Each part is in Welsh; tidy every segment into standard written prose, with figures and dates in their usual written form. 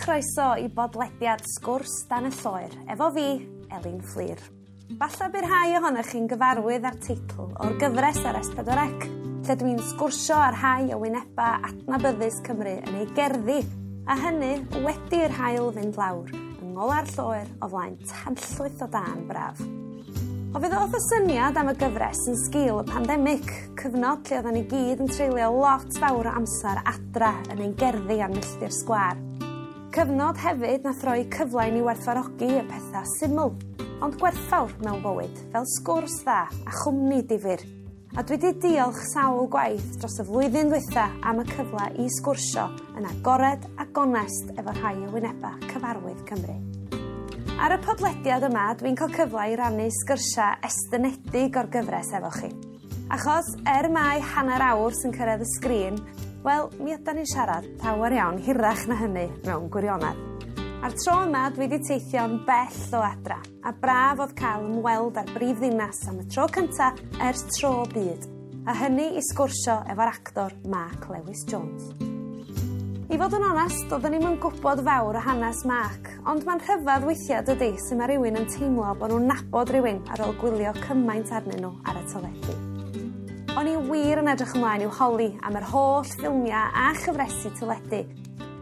chroeso i bodlediad Sgwrs Dan y Lloer, efo fi, Elin Fflur. Falle bydd rhai ohonoch chi'n gyfarwydd â'r teitl o'r gyfres ar S4C, lle dwi'n sgwrsio ar rhai o wyneba adnabyddus Cymru yn ei gerddi, a hynny wedi'r haul fynd lawr, yng ngola'r lloer o flaen tanllwyth o dân braf. O fe ddoth y syniad am y gyfres yn sgil y pandemig, cyfnod lle oedden ni gyd yn treulio lot fawr o amser adra yn ein gerddi a'n milltir sgwâr. Cyfnod hefyd nath roi cyfle i ni werthfawrogi y pethau syml, ond gwerthfawr mewn bywyd, fel sgwrs dda a chwmni difyr. A dwi 'di diolch sawl gwaith dros y flwyddyn ddwytha am y cyfle i sgwrsio yn agored a gonest efo rhai o wyneba cyfarwydd Cymru. Ar y podlediad yma, dwi'n cael cyfle i rannu sgyrsiau estynedig o'r gyfres efo chi. Achos, er mai hanner awr sy'n cyrraedd y sgrin, wel, mi ydan ni'n siarad llawer iawn hirach na hynny mewn gwirionedd. A'r tro yma, dwi wedi teithio'n bell o adra, a braf oedd cael ymweld â'r brif ddinas am y tro cynta ers tro byd, a hynny i sgwrsio efo'r actor Mark Lewis Jones. I fod yn onest, doeddwn i'm yn gwybod fawr o hanes Mark, ond mae'n rhyfedd weithiau dydy sut mae rhywun yn teimlo bod nhw'n nabod rhywun ar ôl gwylio cymaint arnyn nhw ar y teledu. O'n i wir yn edrych ymlaen i'w holi am yr holl ffilmiau a chyfresi teledu,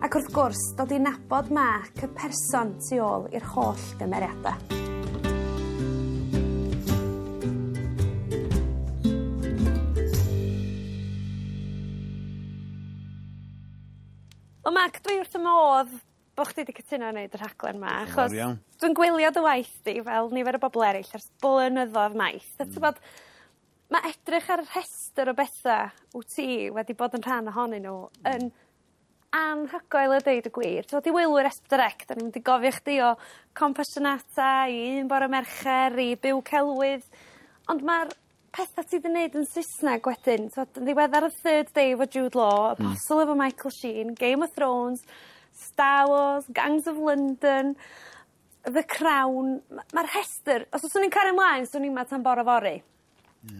ac wrth gwrs, dod i nabod Mark, y person tu ôl i'r holl gymeriadau. Wel Mark, dwi wrth 'y modd bo' chdi 'di cytuno i neud y rhaglen 'ma achos dwi'n gwylio dy waith di fel nifer o bobol eryll ers blynyddodd maith a t'bod ma' edrych ar y rhestyr o betha wt ti wedi bod yn rhan ohonyn n'w yn anhygoel a deud y gwir. T'mod i wylwyr Es Pedwar Ec 'dan ni'n mynd i gofio chdi o Compassionata i Un Bore Mercher i Byw Celwydd ond ma'r petha ti 'di neud yn Sysneg wedyn t'od yn ddiweddar y Third Day efo Jude Law Apostle efo Michael Sheen, Game of Thrones, Star Wars, Gangs of London, The Crown ma'r rhestyr os fyswn i'n cario mlaen swn i 'ma tan bore fory.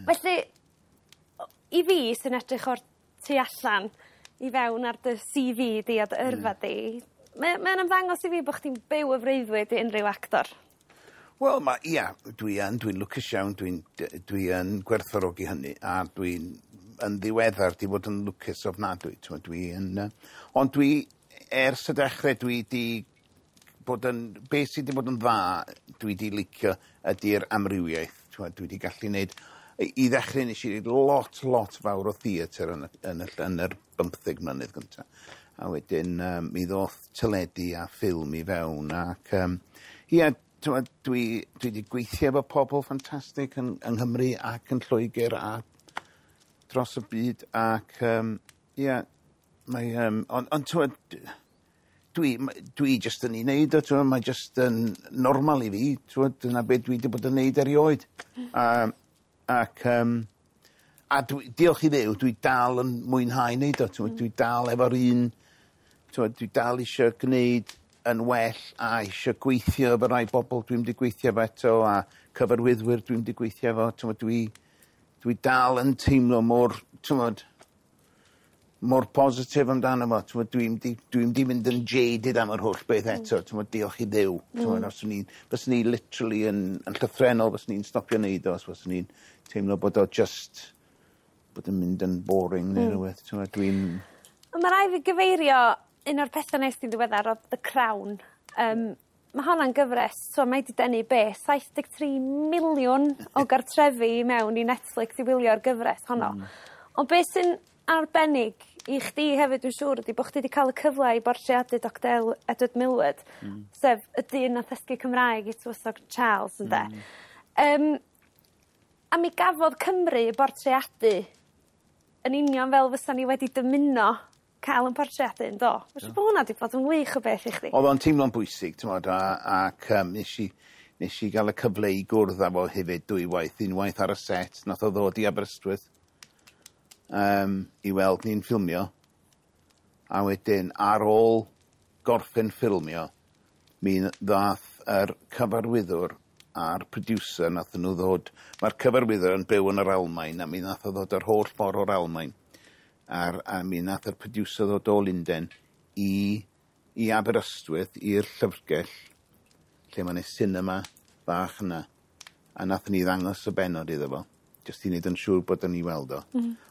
Felly i fi sy'n edrych o'r tu allan i fewn ar dy See Vee di a dy yrfa di mae o'n ymddangos i fi bo' chdi'n byw y freuddwyd i unrhyw actor. Wel ma' ia dwi yn dwi'n lwcus iawn dwi yn gwerthfawrogi hynny a dwi'n yn ddiweddar 'di bod yn lwcus ofnadwy t'mod dwi yn ond dwi ers y dechre dwi 'di bod yn beth sy 'di bod yn dda dwi 'di licio ydi'r amrywiaeth t'mod dwi 'di gallu neud i ddechre nesh i neud lot lot fawr o theatr yn y yn y yn yr 15 mlynedd gynta a wedyn mi ddoth teledu a ffilm i fewn ac ia t'mod dwi 'di gweithio efo pobol ffantastig yng Nghymru ac yn Lloegr a dros y byd ac ia mae ond t'mod dwi jyst yn 'i neud o t'mod mae jyst yn normal i fi t'mod dyna be' dwi 'di bod yn neud erioed. Ac a dwi diolch i Dduw dwi dal yn mwynhau neud o t'mod dwi dal efo'r un t'mod dwi dal isio gneud yn well a isio gweithio efo rai bobol dwi'm 'di gweithio efo eto a cyfarwyddwyr dwi'm 'di gweithio efo t'mod dwi dal yn teimlo mor t'mod mor positif amdano fo t'mod dwi'm 'di mynd yn jaded am yr holl beth eto t'mod diolch i Dduw t'mod os o'n i fyswn i literally yn llythrennol fyswn i'n stopio neud o os fyswn i'n teimlo bod o just bod yn mynd yn boring neu rywbeth t'mod dwi'n Ond ma' rai' fi gyfeirio un o'r petha nes di'n ddiweddar o'dd The Crown. Ma' honna'n gyfres so mae 'di denu be' 73 miliwn o gartrefi i mewn i Netflix i wylio'r gyfres honno. Ond be' sy'n arbennig i chdi hefyd dwi'n siŵr ydi bo' chdi 'di ca'l y cyfle i bortreadu Doctor Edward Millward sef y dyn nath ddysgu Cymraeg i tywysog Charles ynde? A mi gafodd Cymru bortreadu yn union fel fysa ni wedi dymuno cael yn portreadu yn do? Ma' siŵr bo' hwnna 'di bod yn wych o beth i chdi. O'dd o'n teimlo'n bwysig t'mod ac nes i ga'l y cyfle i gwrdd â fo hefyd dwywaith, unwaith ar y set nath o ddod i Aberystwyth i weld ni'n ffilmio a wedyn ar ôl gorffen ffilmio mi ddath yr cyfarwyddwr a'r producer nathon nhw ddod ma'r cyfarwyddwr yn byw yn yr Almaen a mi nath o ddod yr holl ffordd o'r Almaen a mi nath yr producer ddod o Lunden i i Aberystwyth i'r llyfrgell lle mae 'na cinema bach yna a nathon ni ddangos y bennod iddo fo jyst i neud yn siŵr bod o'n i weld o.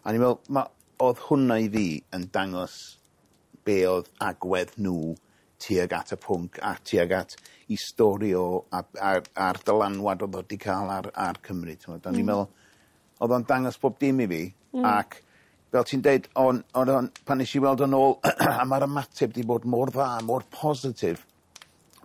A ni'n meddwl o'dd hwnna i fi yn dangos be oedd agwedd nhw tuag at y pwnc a tuag at i stori o a'r dylanwad oedd o 'di ca'l ar Cymru t'mod. O'n i'n meddwl o'dd o'n dangos bob dim i fi ac fel ti'n deud o'n o'n pan nesh i weld o'n ôl a ma'r ymateb 'di bod mor dda, mor positif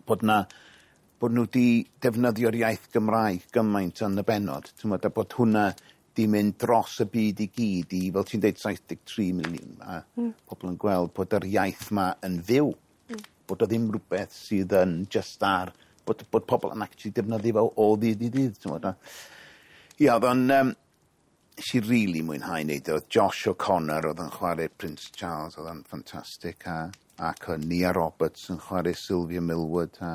bod nhw 'di defnyddio'r iaith Gymraeg gymaint yn y bennod t'mod a bod hwnna 'di mynd dros y byd i gyd i, fel ti'n deud, 73 miliwn a pobl yn gweld bod yr iaith 'ma yn fyw. Bod o ddim rhywbeth sydd yn just ar bod pobl yn actually defnyddio fo o ddydd i ddydd t'mod a ia o'dd o'n nes i rili mwynhau neud o. O'dd Josh O'Connor o'dd yn chwarae Prince Charles, o'dd o'n ffantastig ac o'dd Nia Roberts yn chwarae Sylvia Millward a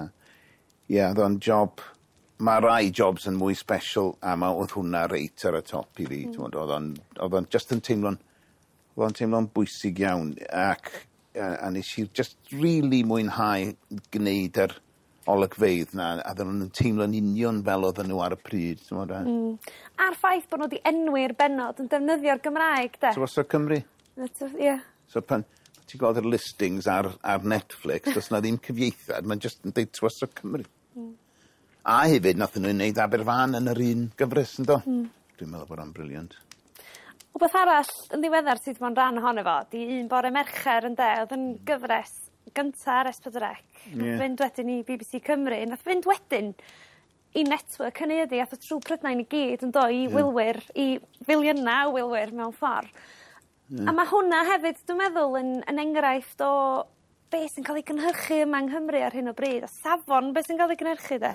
ie o'dd o'n job. Ma' rai jobs yn mwy special a o'dd hwnna reit ar y top i fi t'mod o'dd o'n just yn teimlo'n o'dd o'n teimlo'n bwysig iawn ac a nes i just really mwynhau gneud yr olygfeydd 'na a oedden nhw'n teimlo'n union fel oedden nhw ar y pryd t'mod a A'r ffaith bod nhw wedi enwi'r bennod yn defnyddio'r Gymraeg de. Tywysog Cymru. Ie. So pan ti'n gweld yr listings ar Netflix, does 'na ddim cyfieithiad, mae'n just yn deud Tywysog Cymru. A hefyd nathon nhw wneud Aberfan yn yr un gyfres yndo? Dwi'n meddwl bod o'n brilliant. Wbeth arall yn ddiweddar sydd bod yn rhan ohono fo, di Un Bore Mercher ynde, oedd yn gyfres gynta ar S4C. Nath fynd wedyn i BBC Cymru, nath fynd wedyn i network hynny ydi, ath o trwy Prydain i gyd yn do, i wylwyr, i filiynau o wylwyr mewn ffordd. A mae hwnna hefyd, dwi'n meddwl, yn enghraifft o be sy'n cael ei gynhyrchu yma yng Nghymru ar hyn o bryd, a safon be sy'n cael ei gynhyrchu de.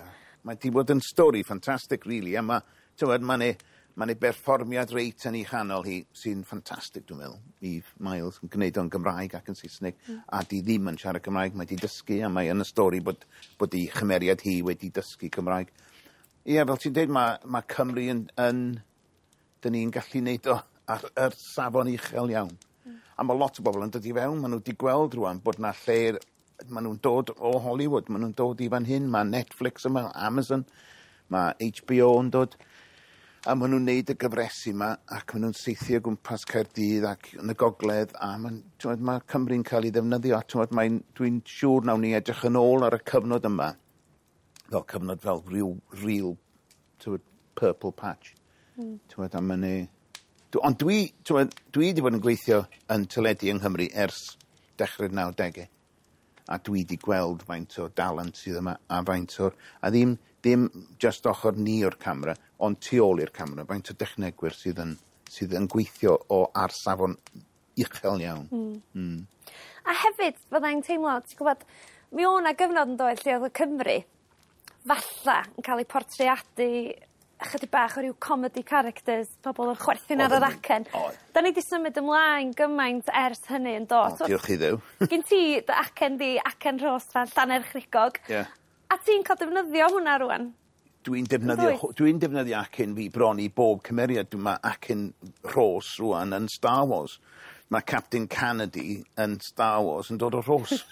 Mae 'di bod yn stori ffantastig, really, a mae, t'wod, ma' 'ne berfformiad reit yn ei chanol hi sy'n ffantastig, dwi'n meddwl. Eve Miles yn gwneud o'n Gymraeg ac yn Saesneg, a di ddim yn siarad Cymraeg, mae 'di dysgu, a mae yn y stori bod ei chymeriad hi wedi dysgu Cymraeg. Ie, fel ti'n deud, mae Cymru yn dyn ni'n gallu neud o ar yr safon uchel iawn. A mae lot o bobl yn dod i fewn, maen nhw wedi gweld rwan bod na lle, maen nhw'n dod o Hollywood, maen nhw'n dod i fan hyn, mae Netflix yma, Amazon, mae HBO yn dod, a maen nhw'n neud y gyfresi yma, ac maen nhw'n saethu o gwmpas Caerdydd ac yn y gogledd, a t'mod, mae Cymru'n cael ei ddefnyddio, a t'mod, dwi'n siŵr nawn ni edrych yn ôl ar y cyfnod yma, fel cyfnod fel real, t'mod, purple patch. T'mod, a ma' Ond dwi, t'mod, dwi wedi bod yn gweithio yn teledu yng Nghymru ers dechrau'r 90au. A dwi wedi gweld faint o dalent sydd yma a faint o'r... A ddim just ochr ni o'r camera, ond tu ôl i'r camera, faint o dechnegwyr sydd yn gweithio o ar safon uchel iawn. A hefyd, fyddai'n teimlo, ti'n gwybod, mi o' 'na gyfnod yn dod lle oedd y Cymru falla yn cael ei portreadu ychydig bach o ryw comedy characters, pobl yn chwerthin ar yr acen. Oedd. Da ni 'di symud ymlaen gymaint ers hynny yn do. O, diolch i Dduw. Gyn ti dy acen di, acen Rhos fan Llanerchrugog. Ie. A ti'n cael defnyddio hwnna rwan? Dwi'n defnyddio, Yndwyt? Dwi'n defnyddio acen fi bron i bob cymeriad. Mae acen Rhos rwan yn Star Wars. Mae Captain Canady yn Star Wars yn dod o Rhos.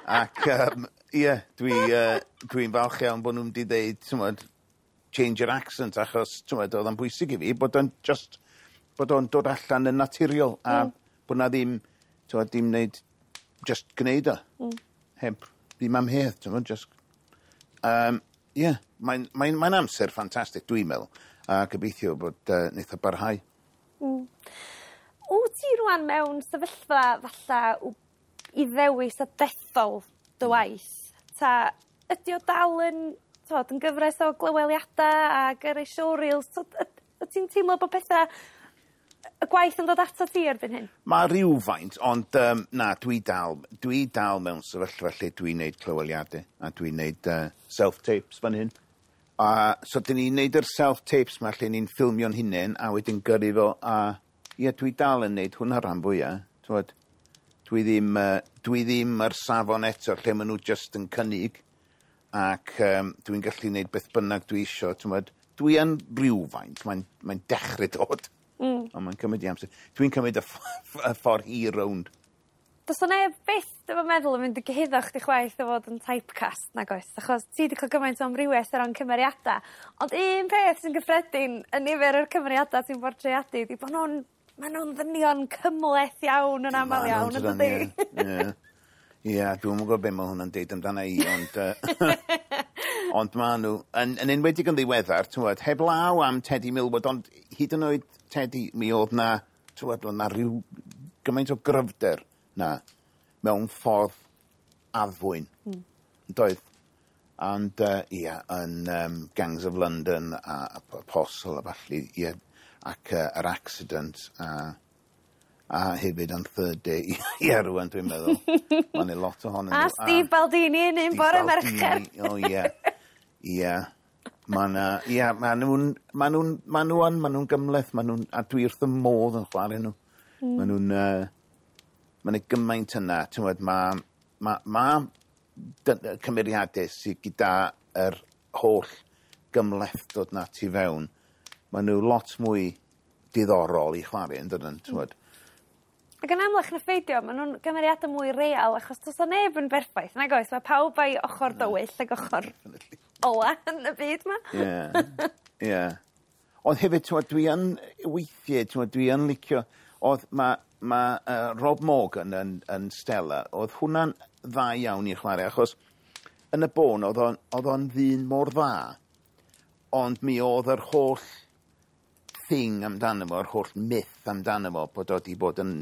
Ac, ie, dwi'n falch iawn bod nhw'n di ddeud, t'mod, change your accent, achos, t'mod, oedd o'n bwysig i fi bod o'n just, bod o'n dod allan yn naturiol, a bod na ddim, t'mod, dim wneud, just gwneud o. Heb, ddim amheuaeth, t'mod, just. Ie, mae'n amser ffantastig, dwi'n meddwl, a gobeithio bod wneith o barhau. Wyt ti rwan mewn sefyllfa falla i ddewis a dethol dy waith? Ta ydy o dal yn, t'mod, yn gyfres o glyweliadau a gyrru showreels? Wyt ti'n teimlo bod pethau, y gwaith yn dod ato ti erbyn hyn? Mae rhywfaint, ond na, dwi dal mewn sefyllfa lle dwi'n neud clyweliadau a dwi'n neud self-tapes fan hyn. A so dyn ni'n neud yr self-tapes ma lle ni'n ffilmio'n hunain a wedyn gyrru fo a ie, dwi dal yn neud hwnna rhan fwyaf. T'mod, dwi ddim ar safon eto lle maen nhw just yn cynnig ac dwi'n gallu neud beth bynnag dwi isio, t'mod. Dwi yn rhywfaint, mae'n dechrau dod. Ond mae'n cymryd i amser. Dwi'n cymryd y ffordd hir rownd. Does 'na neb byth dwi'm yn meddwl yn mynd i gyhuddo chdi chwaith o fod yn typecast nag oes achos ti 'di ca'l gymaint o amrywieth o ran cymeriada ond un peth sy'n gyffredin yn nifer o'r cymeriada ti'n bortreadu 'di bo' nw'n ma' nw'n ddynion cymleth iawn yn amal iawn yndydi? Ie. Ie, dwi'm yn gwbo be' ma' hwnna'n deud amdana i ond ond ma' n'w yn enwedig yn ddiweddar t'mod heblaw am Tedi Millward ond hyd yn oed Tedi mi o'dd 'na t'wod o' 'na ryw gymaint o gryfder 'na mewn ffordd addfwyn. Yndoedd? Ond ia yn Gangs of London a Apostle a ballu ie ac yr accident a hefyd yn Third Day ie rŵan dwi'n meddwl. Ma' 'ne lot ohonyn nhw. A Steve Baldini yn un bore Mercher. O ie. Ie. Ma' 'na ia ma' nw'n ma' nw'n ma' nw yn ma' nw'n gymleth ma' nw'n a dwi wrth 'ym modd yn chware nhw. Ma' nw'n ma' 'ne gymaint yna t'mod ma' cymeriade sy gyda yr holl gymhlethdod 'na tu fewn ma' nhw lot mwy diddorol i chware yndydyn t'mod? Ac yn amlach na pheidio ma' nw'n gymeriada mwy real achos do's 'a neb yn berffaith nag oes ma' pawb a'i ochor dywyll ag ochor ola yn y byd 'ma. Ie. Ie. Ond hefyd t'mod dwi yn weithie t'mod dwi yn licio o'dd ma' Rob Morgan yn Stella o'dd hwnna'n dda iawn i chware achos yn y bôn o'dd o'n ddyn mor dda ond mi o'dd yr holl thing amdano fo yr holl myth amdano fo bod o 'di bod yn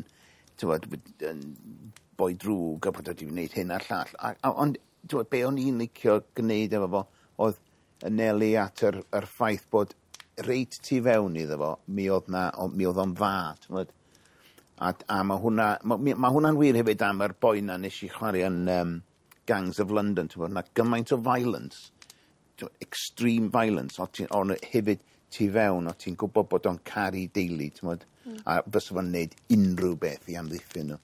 t'mod yn boi drwg a bod o 'di wneud hyn a'r llall a ond t'mod be' o'n i'n licio gneud efo fo o'dd anelu at yr ffaith bod reit tu fewn iddo fo mi o'dd 'na mi o'dd o'n dda t'mod? A ma' hwnna ma' hwnna'n wir hefyd am yr boi 'na nesh i chware yn Gangs of London t'mod ma' gymaint o violence extreme violence on' hefyd tu fewn o' ti'n gwbod bod o'n caru deulu t'mod? A fysa fo'n neud unrhyw beth i amddiffyn nhw.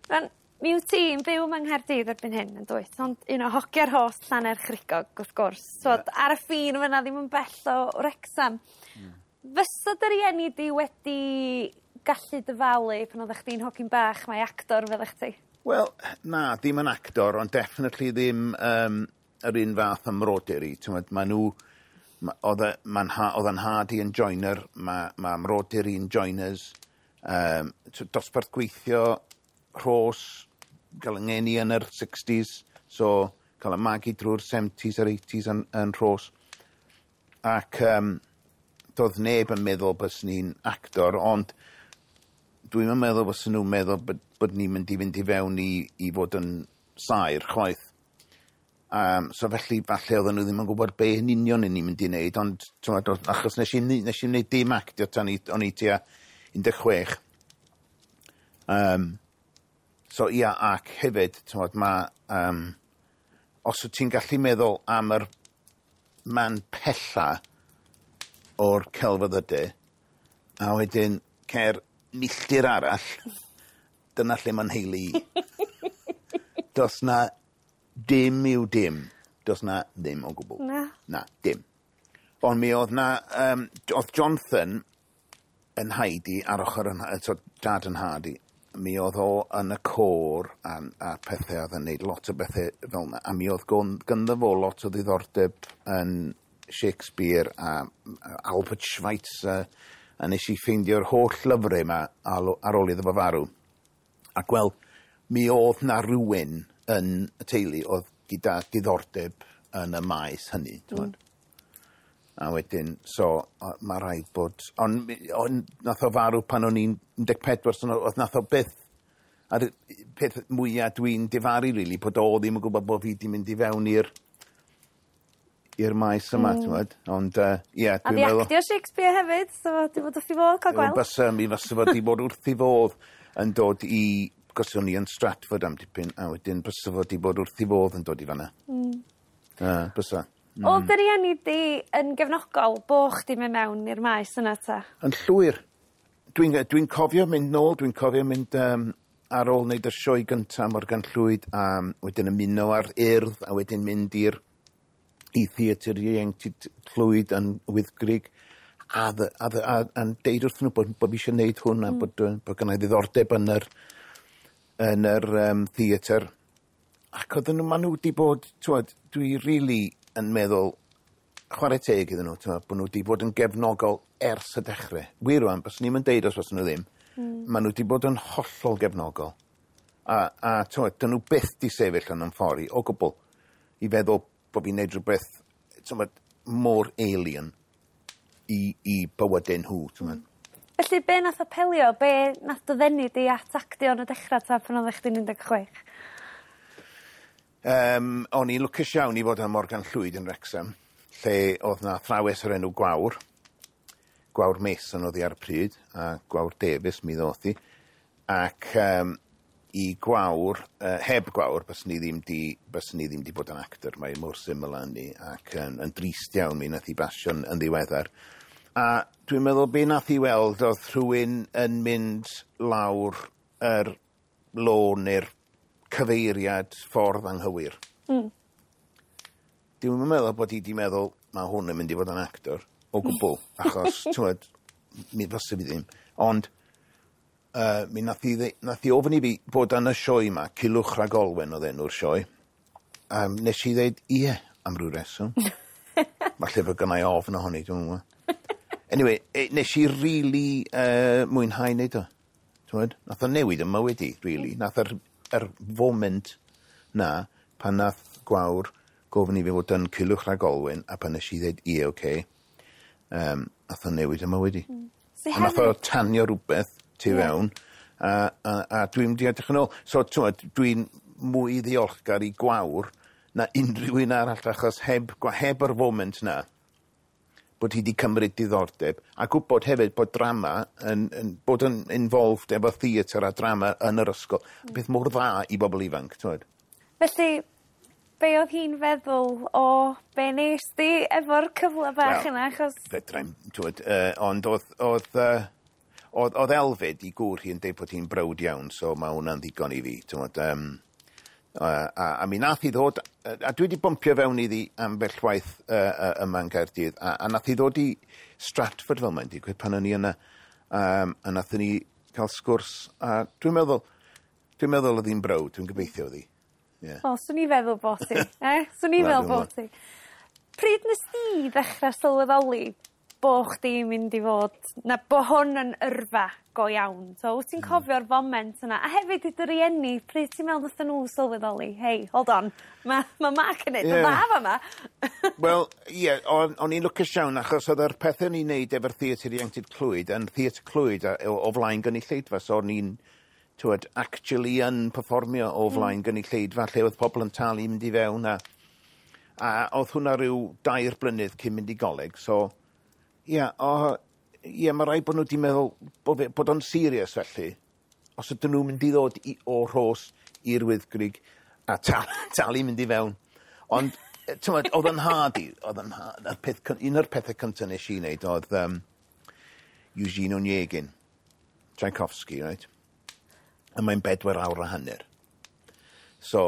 Rŵan mi wyt ti'n byw yma yng Nghaerdydd erbyn hyn yn dwyt ond un o hogia'r host Llanerchrugog wrth gwrs t'wod ar y ffin yn fynna ddim yn bell o Wrecsam. Fysa dy rieni di wedi gallu dyfalu pan oddach chdi'n hogyn bach mai actor fyddach chdi? Wel na ddim yn actor ond definitely ddim yr un fath â mrodyr i t'mod ma' nhw o'dd e ma'n o'dd 'yn nhad i yn joiner ma' mrodyr i'n joiners dosbarth gweithio Rhos ga'l 'yng ngeni yn yr sixties so ca'l 'y magu drw'r seventies a'r eighties yn Rhos. Ac do'dd neb yn meddwl byswn i'n actor ond dwi'm yn meddwl fyswn nw'n meddwl bod ni'n mynd i fynd i fewn i fod yn saer chwaith. So felly falle oedden nhw ddim yn gwybod be yn union o'n i'n mynd i wneud ond t'mod achos nes i wneud dim actio tan o'n i tua 16. So ia ac hefyd t'mod ma' os wyt ti'n gallu meddwl am yr man pella o'r celfyddyde a wedyn cer milltir arall dyna lle ma'n nheulu i. Do's 'na dim yw dim. Do's 'na ddim o gwbwl. Na. Na, dim. Ond mi o'dd 'na o'dd Jonathan yn nhaid i ar ochr 'yn so dad 'yn nhad i mi o'dd o yn y côr a pethe o'dd yn neud lot o bethe fel 'na a mi o'dd gynddo fo lot o ddiddordeb yn Shakespeare a Albert Schweitzer a nes i ffeindio'r holl lyfre 'ma ar ôl iddo fo farw. Ac wel mi o'dd 'na rywun yn y teulu o'dd gyda diddordeb yn y maes hynny t'mod. A wedyn so ma' raid bod on' nath o farw pan o'n i'n 14 so o'dd nath o byth a'r peth mwya dwi'n difaru rili bod o ddim yn gwbod bo' fi 'di mynd i fewn i'r maes yma t'mod ond ie A dwi'n di meddwl actio Shakespeare hefyd so di bod wrth 'i fodd ca'l gweld. Bysa mi fysa fo 'di bod wrth 'i fodd yn dod i 'cos o'n i yn Stratford am dipyn a wedyn bysa fo 'di bod wrth 'i fodd yn dod i fan 'na. Bysa. O'dd dy rieni di yn gefnogol bo' chdi myn' mewn i'r maes yna 'ta? Yn llwyr. Dwi'n cofio mynd nôl, dwi'n cofio mynd ar ôl wneud y sioe gynta Morgan Llwyd a wedyn ymuno ar Urdd a wedyn mynd i Theatr Ieuenctid Clwyd yn Wyddgrug. A deud wrthyn nhw bod fi eisiau gwneud hwn a bod gynna i ddiddordeb yn yr theatr. Ac oedden nhw, maen nhw wedi bod, t'wod, dwi really yn meddwl, chwarae teg iddyn nhw, t'wod, bod nhw wedi bod yn gefnogol ers y dechrau. Wir rwan, byswn ni'n deud os fyswn nhw ddim. Maen nhw wedi bod yn hollol gefnogol. A t'wod, dyn nhw byth di sefyll yn ffordd i, o gwbl, i feddwl bod fi'n neud rhywbeth, t'wod, mor alien i bywydau nhw, t'wod. Felly, be nath apelio, be nath dy ddenu di at actio yn y dechrau ta pan oeddech chdi'n 16? O'n i'n lwcus iawn i fod yn Morgan Llwyd yn Wrexham, lle oedd na athrawes o'r enw Gwawr. Gwawr Mason oedd hi ar y pryd, a Gwawr Davies mi ddoth hi. Ac i Gwawr, heb Gwawr, byswn ni ddim di bod yn actor. Mae mor syml â hynny, ac yn drist iawn mi nath hi basio'n yn ddiweddar. A dwi'n meddwl be nath hi weld oedd rhywun yn mynd lawr yr lôn neu'r cyfeiriad ffordd anghywir. Dwi'n meddwl bod hi di meddwl, mae hwn yn mynd i fod yn actor o gwbl, achos, t'wod, mi fysa fi ddim. Ond mi nath hi ofyn i fi bod yn y sioe yma, Culhwch Rhag Olwen oedd enw'r sioe. Nes i ddeud ie am ryw reswm. Falle fod gynna i ofn ohoni, dwi'n gwybod. Anyway, nes i really mwynhau neud o. T'wod? Nath o newid 'y mywyd i, really. Nath yr foment na, pan nath Gwawr gofyn i fi fod yn Culhwch Rhag Olwen, a pan nes i ddeud ie, okay, nath o newid 'y mywyd i. So A nath o tanio rhywbeth tu fewn, a dwi'n mynd i edrych yn ôl. So, t'wod, dwi'n mwy ddiolchgar i Gwawr na unrhyw un arall, achos heb yr foment na, bod hi wedi cymryd diddordeb, a gwybod hefyd bod drama yn bod yn involved efo theatr a drama yn yr ysgol. Beth mor dda i bobl ifanc, t'wod. Felly, be oedd hi'n feddwl o be nes di efo'r cyfle bach Wel, yna, achos Fedrai'm, t'wod, ond oedd Elfed i gŵr hi yn deud bod hi'n browd iawn, so mae hwnna'n ddigon i fi, t'wod. A mi nath hi ddod, a dwi wedi bumpio fewn iddi ambell waith yma yn Gaerdydd, a nath hi ddod i Stratford fel mae'n digwydd pan o'n i yna, a nathon ni cael sgwrs, a dwi'n meddwl oedd hi'n browd, dwi'n gobeithio oedd hi. Yeah. O, swn i feddwl bod ti. Eh? Swn i Wel, feddwl dwi'n bod ti. Pryd nes di ddechrau sylweddoli bo chdi'n mynd i fod, na bo hwn yn yrfa go iawn? So, wyt ti'n cofio'r foment yna? A hefyd i dy rieni, pryd ti'n meddwl nathon nhw sylweddoli? Hey, hold on, mae Mark yn neud yn dda fama. Wel, ie, yeah, o'n i'n lwcus iawn achos oedd yr pethau o'n i'n neud efo'r Theatr Ieuenctid Clwyd yn Theatr Clwyd o flaen gynulleidfa, so o'n i'n, t'wod, actually yn perfformio o flaen gynulleidfa lle oedd pobl yn talu i mynd i fewn a oedd hwnna rhyw 3 blynedd cyn mynd i goleg, so ie, yeah, ie, mae rhaid bod nhw wedi meddwl bod o'n serious felly. Os ydyn nhw'n mynd i ddod o Rhos i'r Wyddgrug a talu mynd i fewn. Ond, t'mod, oedd yn nhad i, oedd yn nhad, y peth, un o'r pethau cyntaf nes i wneud oedd Eugene Onegin, Tchaikovsky, right? A mae'n 4 awr a hanner. So,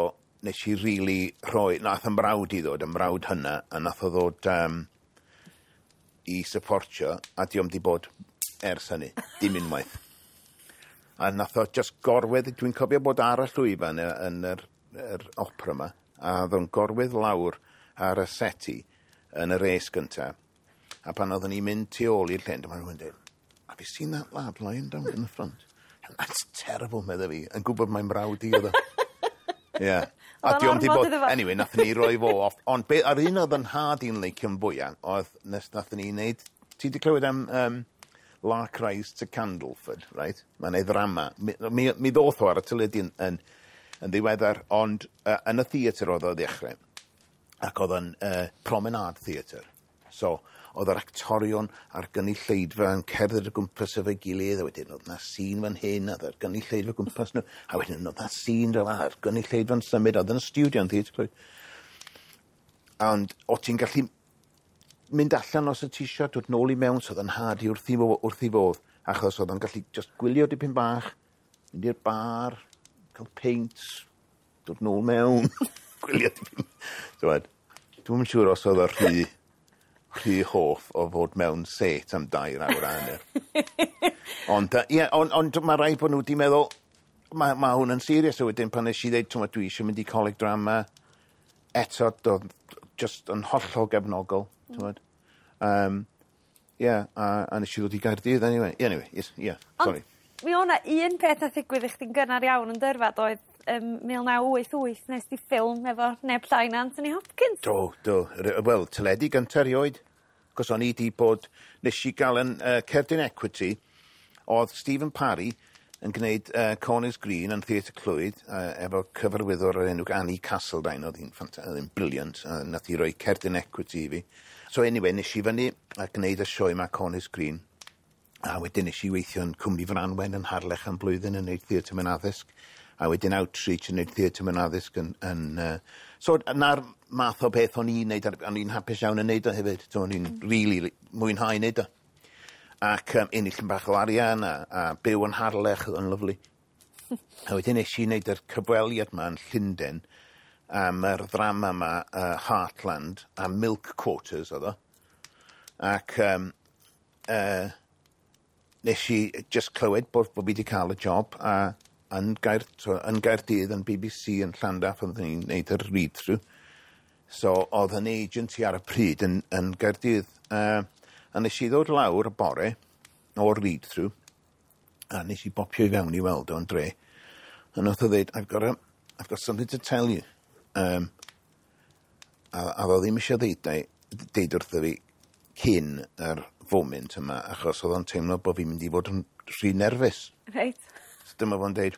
nes i really rhoi, nath 'y mrawd i ddod, 'y mrawd hynna, a nath o ddod i supportio, a dio'm di bod ers hynny, dim unwaith. A nath o just gorwedd, dwi'n cofio bod ar y llwyfan yn yr opera yma, a oedd o'n gorwedd lawr ar y seti yn y res gynta. A pan oeddwn ni'n mynd tu ôl i'r llyn, dyma rhywun dweud, "Have you seen that lad lying down in the front?" "That's terrible," medda fi, yn gwybod mae'n mrawd i oedd o. Ie. A Oedd o'n dio'm di ormod bod. iddo fo. Anyway, nathon ni roi fo off. Ond be, ar un oedd yn nhad i'n leicio'n fwyaf, oedd nes nathon ni wneud. Ti di clywed am Lark Rise to Candleford, right? Mae'n ei ddrama. Mi ddoth o ar y teledu yn ddiweddar, ond yn y theatr oedd o ddechrau. Ac oedd yn promenade theatr. So, oedd yr actorion a'r gynulleidfa yn cerdded o gwmpas efo'i gilydd, a wedyn oedd na sîn fan hyn, a oedd yr gynulleidfa o gwmpas nhw, a wedyn oedd na sîn fel a'r gynulleidfa'n symud, oedd yn y studio yn theatr Clwyd. Ond o ti'n gallu mynd allan os y ti isio, dod nôl i mewn, so oedd yn nhad i wrth i fodd, achos oedd o'n gallu just gwylio dipyn bach, mynd i'r bar, cael peint, dod nôl mewn, gwylio dipyn. T'wod, dwi'm yn siŵr os oedd o rhy rhy hoff o fod mewn set am 2 awr a hanner. Ond, ie, ond mae rhaid bod nhw wedi meddwl, mae hwn yn serious. A wedyn pan nes i ddeud, t'mod, dwi eisiau mynd i coleg drama, eto, doedd just yn hollol gefnogol, t'mod. Yeah, a nes i ddod i Gaerdydd anyway. Anyway, yes, yeah, sorry. Ond mi o'na un peth nath ddigwydd i chdi'n gynnar iawn yn dyrfa, doedd, 1988 nes di ffilm efo neb llai na Anthony Hopkins. Do. Wel, teledu gyntaf erioed. Cos o'n i di bod, nes i gael yn Cerdyn Equity, oedd Stephen Parry yn gwneud Corners Green yn Theatr Clwyd, efo cyfarwyddwr o'r enw Annie Castledine, oedd hi'n brilliant, nath hi roi Cerdyn Equity i fi. So anyway, nes i fyny a gwneud y sioe ma Corners Green, a wedyn nes i weithio yn Cwmni Franwen yn Harlech am blwyddyn yn gwneud theatr mewn addysg, a wedyn outreach yn gwneud theatr mewn addysg yn. So na'r math o beth o'n i'n neud, o'n i'n hapus iawn yn neud o hefyd. So o'n i'n really mwynhau neud o. Ac ennill yn bach o arian a byw yn Harlech, oedd yn lyfli. A wedyn nes i wneud yr cyfweliad ma yn Llundain am yr ddrama ma, Heartland, a Milk Quarters oedd o. Ac nes i just clywed bod fi wedi cael y job a so, yn Gaerdydd, yn BBC yn Llandaf, oedden ni'n neud yr read-through. So oedd yn agency ar y pryd yn Gaerdydd. A nes i ddod lawr y bore o'r read-through, a nes i bopio i fewn i weld o'n dre. A nath o ddeud, "I've got something to tell you." A ddo ddim eisiau deud wrtho fi cyn yr foment yma, achos oedd o'n teimlo bod fi'n mynd i fod yn rhy nerfus. So dyma fo'n deud,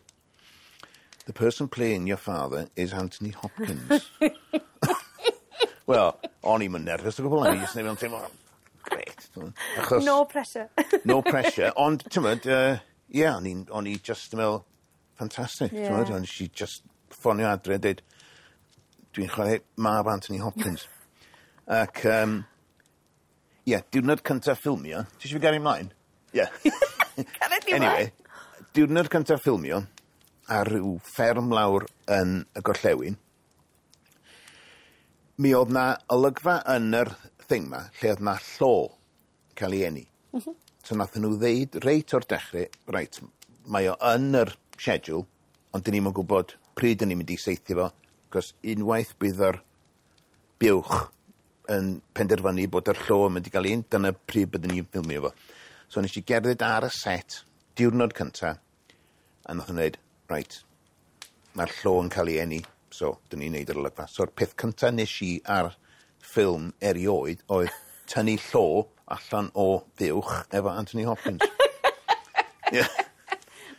"The person playing your father is Anthony Hopkins." Wel, o'n i'm yn nerfus o gwbl, o'n i jyst yn teimlo, great. Achos, No pressure. No pressure, ond, ti'n mynd, yeah, o'n i just yn meddwl, fantastic, ti'n mynd, o'n i just ffonio adre a deud, "Dwi'n chwarae mab Anthony Hopkins." Ac, ie, yeah, diwrnod cyntaf ffilmio, ti eisiau fi gario ymlaen? Ie. Yeah. Anyway, diwrnod cyntaf ffilmio, ar ryw fferm lawr yn y gorllewin, mi oedd na olygfa yn yr thing ma, lle oedd na llo cael ei eni. So nath nhw ddeud reit o'r dechrau, reit, mae o yn yr schedule, ond dyn ni'm yn gwybod pryd dyn ni'n mynd i saethu fo, cos unwaith bydd yr buwch yn penderfynu bod yr llo yn mynd i gael un, dyna pryd byddwn ni'n ffilmio fo. So nes i gerdded ar y set, diwrnod cynta, a nath nhw dweud, reit, mae'r llo yn cael ei eni, so dyn ni'n neud yr olygfa. So'r peth cynta nes i ar ffilm erioed oedd tynnu llo allan o fuwch efo Anthony Hopkins. Yeah.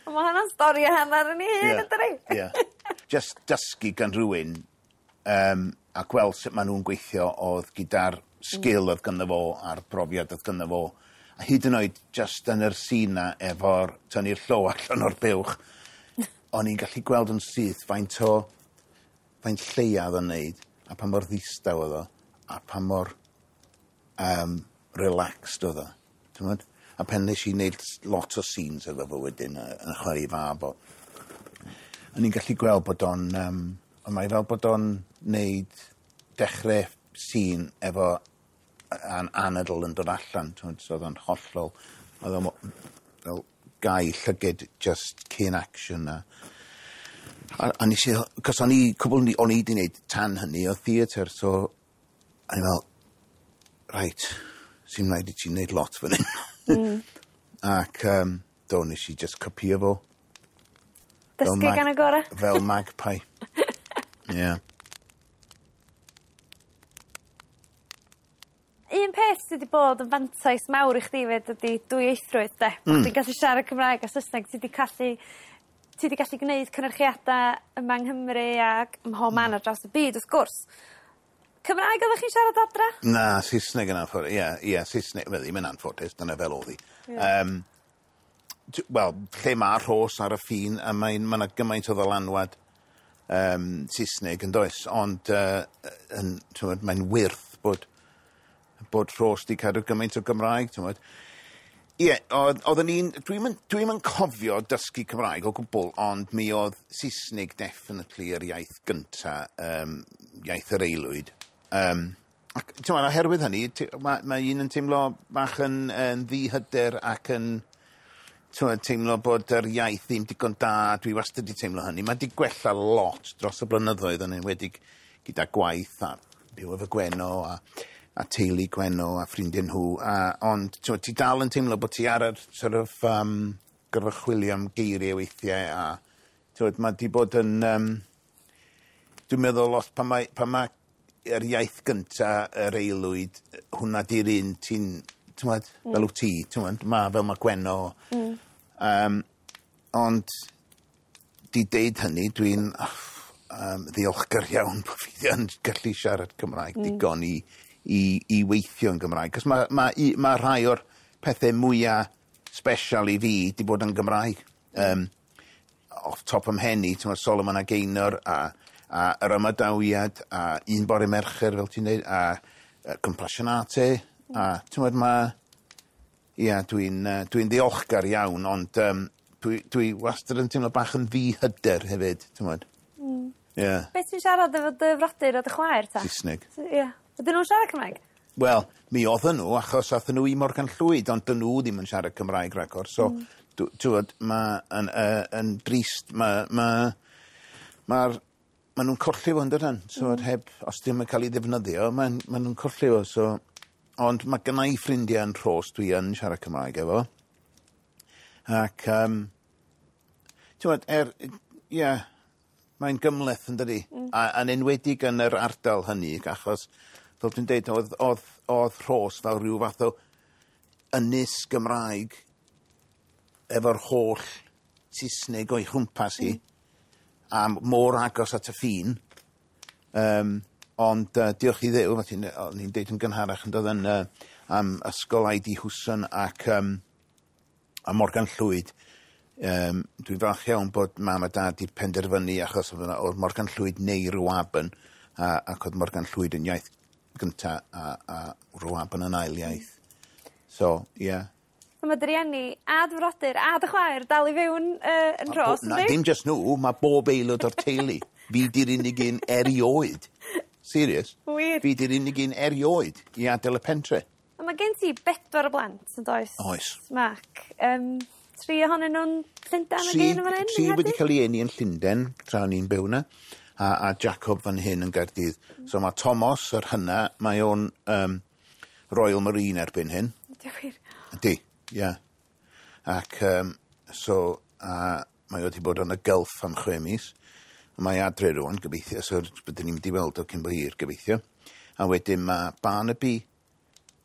Mae hwnna'n stori a hanner yn ei hun, ydydi? Yeah. Just dysgu gan rhywun a gweld sut maen nhw'n gweithio oedd gyda'r sgil oedd ganddo fo a'r brofiad oedd ganddo fo. A hyd yn oed just yn yr sîn na efo'r tynnu'r llo allan o'r buwch, o'n i'n gallu gweld yn syth faint lleia oedd o'n neud, a pa mor ddistaw oedd o, a pa mor relaxed oedd o. T'mod? A pen nes i wneud lot o scenes efo fo wedyn yn chwarae fab o. O'n i'n gallu gweld bod o'n, ond mae fel bod o'n neud dechrau scene efo anadl yn dod allan, t'mod, so oedd o'n hollol, oedd o'n fel gau llyged just cyn action a nes i, cos o'n i, cwbl o'n i wedi wneud tan hynny o theatr, so o'n i fel, reit, sy'n rhaid i ti wneud lot fan hyn. Ac do, nes i just copio fo. Fel Dysgu gan y gorau. Fel magpie. Yeah. Un peth sydd wedi bod yn fantais mawr i chdi fyd ydy dwyieithrwydd, de. Ti'n gallu siarad Cymraeg a Saesneg, ti wedi gallu gwneud cynyrchiadau yma yng Nghymru ac ym mhob man ar draws y byd, wrth gwrs. Cymraeg oeddech chi'n siarad adra? Na, Saesneg yn anffodus. Ie, Saesneg. Wel, ddim yn anffodus, dyna fel oedd hi. Wel, lle mae Rhos ar y ffin, a ma 'na gymaint o ddylanwad Saesneg yn does, ond t'mod, mae'n wyrth bod Rhos 'di cadw gymaint o Gymraeg, t'mod. Ie, oedden ni'n... Dwi'm yn cofio dysgu Cymraeg o gwbl, ond mi oedd Saesneg definitely yr iaith gynta, iaith yr aelwyd. Ac t'mod oherwydd hynny mae un yn teimlo bach yn ddihyder ac yn t'mod teimlo bod yr iaith ddim digon da. Dwi wastad 'di teimlo hynny. Mae 'di gwella lot dros y blynyddoedd yn enwedig gyda gwaith a byw efo Gwenno a teulu Gwenno a ffrindiau nhw a ond t'mod ti dal yn teimlo bod ti ar yr sort of gorfod chwilio am geiriau weithiau a t'mod ma' 'di bod yn dwi'n meddwl os pan mae yr iaith gynta yr aelwyd, hwnna 'di'r un ti'n t'mod fel wt ti, t'mod ma' fel ma' Gwenno. Ond 'di deud hynny, dwi'n ddiolchgar iawn bo' fi yn gallu siarad Cymraeg digon i weithio yn Gymraeg. 'Cos ma' rhai o'r pethe mwya special i fi 'di bod yn Gymraeg. Off top 'y mhen i, t'mod, Solomon a Gaynor a yr ymadawiad a Un Bore Mercher, fel ti'n deud, a Compassionate a t'mod ia, dwi'n ddiolchgar iawn, ond dwi wastad yn teimlo bach yn ddihyder hefyd, t'mod. Ie. Beth ti'n siarad efo dy frodyr a dy chwaer ta? Saesneg. Ie. Ydyn nhw'n siarad Cymraeg? Wel, mi oedden nhw, achos athyn nhw i Morgan Llwyd, ond dyn nhw ddim yn siarad Cymraeg ragor. So, t'wod, ma' yn drist, ma' nhw'n colli fo, yndydyn? So, heb, os dim yn cael ei ddefnyddio, ma' nhw'n colli fo, so. Ond mae gynna i ffrindiau yn Rhos dwi yn siarad Cymraeg efo. Ac, t'wod, ie, mae'n gymhleth, yn dydi? A yn enwedig yn yr ardal hynny, achos, fel dwi'n deud, oedd Rhos fel rhyw fath o ynys Gymraeg efo'r holl Saesneg o'i chwmpas hi, a mor agos at y ffin. Ond diolch i Dduw, fel o'n i'n deud yn gynharach yn dod yn am ysgol I.D. Hwson ac a Morgan Llwyd. Dwi'n falch iawn bod mam a dad 'di penderfynu, achos oedd Morgan Llwyd neu Rhiwabon, ac oedd Morgan Llwyd yn iaith gynta a Rhiwabon yn ail iaith. So, ie. Yeah. Mae dy rieni a dy frodyr a dy chwaer dal i fyw yn Rhos, Na, dim just nhw, mae bob aelod o'r teulu. Fi di'r unig un erioed. Serious. Wir? Fi di'r unig un erioed i adael y pentre. A mae gen ti bedwar o blant, yn does? Oes. Mark. Tri ohonyn nhw'n Llundain ag un yn fan hyn? Tri wedi cael ei eni yn Llundain, tra o'n i'n byw yna, a Jacob fan hyn yn Gaerdydd. So mae Thomas, yr hynna, mae o'n Royal Marine erbyn hyn. Ydy o wir? Ydy, ie. Yeah. Ac so, mae o wedi bod yn y Gulf am 6 mis. Mae adre rwan, gobeithio, so byddwn ni'n mynd i weld o cyn bo hir, gobeithio. A wedyn mae Barnaby,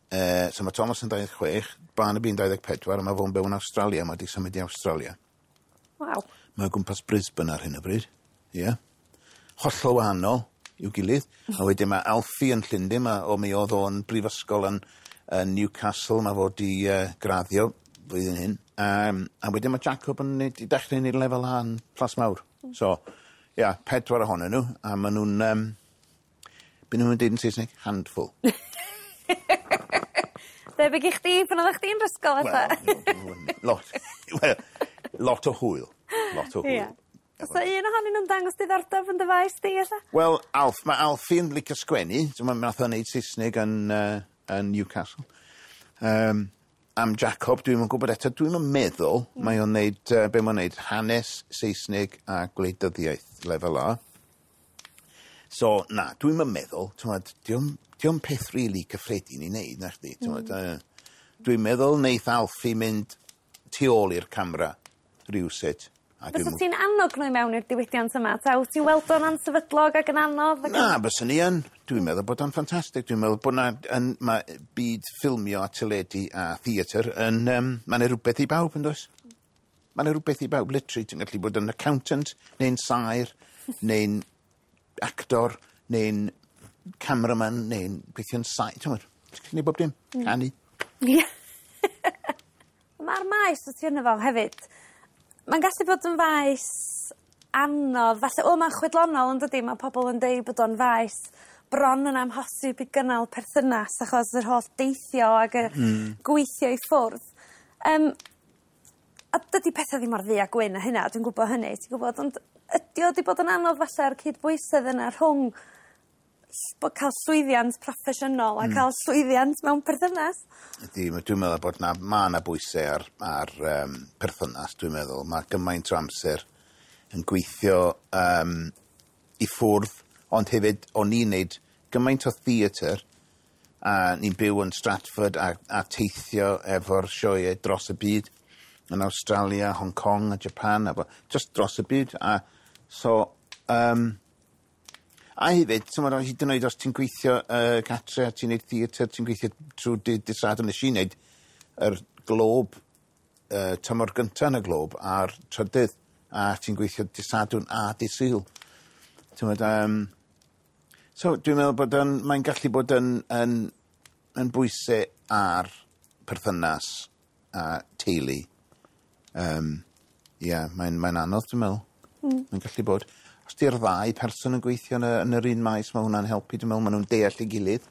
so mae Thomas yn 26, Barnaby yn 24, a mae fo'n byw yn Australia, mae wedi symud i Australia. Waw. Mae o gwmpas Brisbane ar hyn o bryd. Ie. Yeah. Hollol wahanol i'w gilydd. A wedyn mae Alfie yn Llundain, mi oedd o'n brifysgol yn Newcastle, mae fod i graddio flwyddyn hyn. A wedyn mae Jacob yn i dechrau neud lefel A yn Plas Mawr. So, ia, yeah, pedwar ohonyn nhw, a maen nhw'n, be nhw'n dweud yn Saesneg? Handful. Debyg i chdi pan oeddech chdi'n ysgol fatha? Wel, lot. Well, lot o hwyl. Lot o hwyl. Yeah. Oes un ohonyn nhw'n dangos diddordeb yn dy faes di, ella? Wel, Alf, mae Alfie'n licio sgwennu. So mae nath o'n neud Saesneg yn Newcastle. Am Jacob, dwi'm yn gwybod eto, dwi'm yn meddwl, mae o'n neud, be mae'n neud, hanes, Saesneg a gwleidyddiaeth lefel A. So, na, dwi'm yn meddwl, t'mod, dio'm peth rili really cyffredin i wneud, na chdi, t'mod, dwi'n meddwl neith Alfie mynd tu ôl i'r camera rywsut. A Fysa ti'n annog nhw i mewn i'r diwydiant yma? Ta wyt ti'n weld o'n ansefydlog ac yn anodd? Ac Na, byswn i yn. Dwi'n meddwl bod o'n ffantastig. Dwi'n meddwl bod na, mae byd ffilmio a teledu a theatr yn... Mae 'na rhywbeth i bawb, yn does? Mae 'na rhywbeth i bawb, literally. Ti'n gallu bod yn accountant, neu'n saer, neu'n actor, neu'n cameraman, neu'n gweithio'n saer. Ti'n gwybod? Ti'n gallu neud bob dim. Canu. Ie. Mae'r maes o ti yno fo hefyd, mae'n gallu bod yn faes anodd. Falle, o, mae'n chwedlonol, yn dydi? Mae pobl yn deud bod o'n faes bron yn amhosib i gynnal perthynas achos yr holl deithio ac y gweithio i ffwrdd. A dydy pethau ddim mor ddu a gwyn a hynna, dwi'n gwybod hynny, ti'n gwybod, ond ydy o wedi bod yn anodd falle'r cydbwysedd yna rhwng Bod cael llwyddiant proffesiynol a cael llwyddiant mewn perthynas. Ydy, dwi'n meddwl bod na, ma' 'na bwysau ar perthynas, dwi'n meddwl. Mae gymaint o amser yn gweithio i ffwrdd, ond hefyd o'n i'n neud gymaint o theatr, a ni'n byw yn Stratford a teithio efo'r sioeau dros y byd, yn Australia, Hong Kong a Japan, a just dros y byd. A so, a hefyd, t'mod, hyd yn oed os ti'n gweithio gatre a ti'n neud theatr, ti'n gweithio trwy dydd Sadwrn. Nes i neud yr Globe, tymor gynta yn y Globe a'r trydydd, a ti'n gweithio dydd Sadwrn a dydd Sul. T'mod, so dwi'n meddwl bod yn, mae'n gallu bod yn bwysau ar perthynas a teulu. Ie, mae'n anodd, dwi'n meddwl. Mae'n gallu bod. Os di'r ddau person yn gweithio yn yr un maes, mae hwnna'n helpu. Dwi'n meddwl maen nhw'n deall ei gilydd.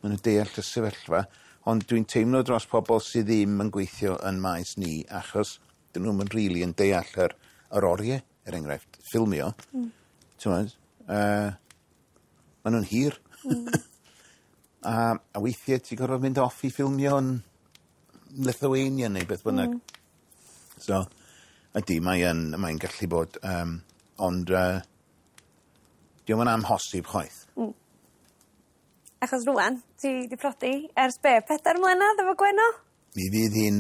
Maen nhw'n deall y sefyllfa. Ond dwi'n teimlo dros pobl sydd ddim yn gweithio yn maes ni, achos dyn nhw'm yn rili yn deall yr oriau, er enghraifft, ffilmio. T'mod, maen nhw'n hir. A weithiau ti'n gorfod mynd off i ffilmio yn Lithuania neu beth bynnag. So, ydy, mae'n gallu bod, ond dio'm yn amhosib chwaith. Achos rŵan, ti 'di prodi ers be, 4 mlynedd efo Gwenno? Mi fydd hi'n,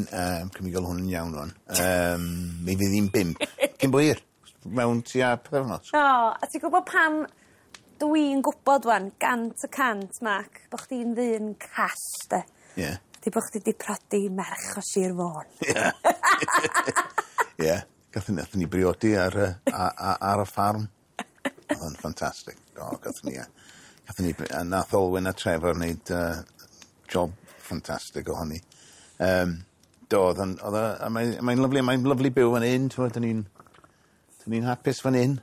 cymryd gael hwn yn iawn rwan, mi fydd hi'n 5 cyn bo hir, mewn tua pythefnos. O, a ti'n gwybod pam dwi'n gwybod wan, 100%, Mark, bo chdi'n ddyn call, de? Ie. Yeah. Di bo chdi 'di prodi merch o Sir Fôn. Ie. Ie. Gathon ni briodi ar y ffarm. Oedd o'n ffantastig. O, gathon ni, a nath Olwyn a Trevor wneud job ffantastig ohoni. Do, oedd o'n, oedd o, a mae'n lyfli, mae'n lyfli byw fan hyn, t'mod, dyn ni'n hapus fan hyn.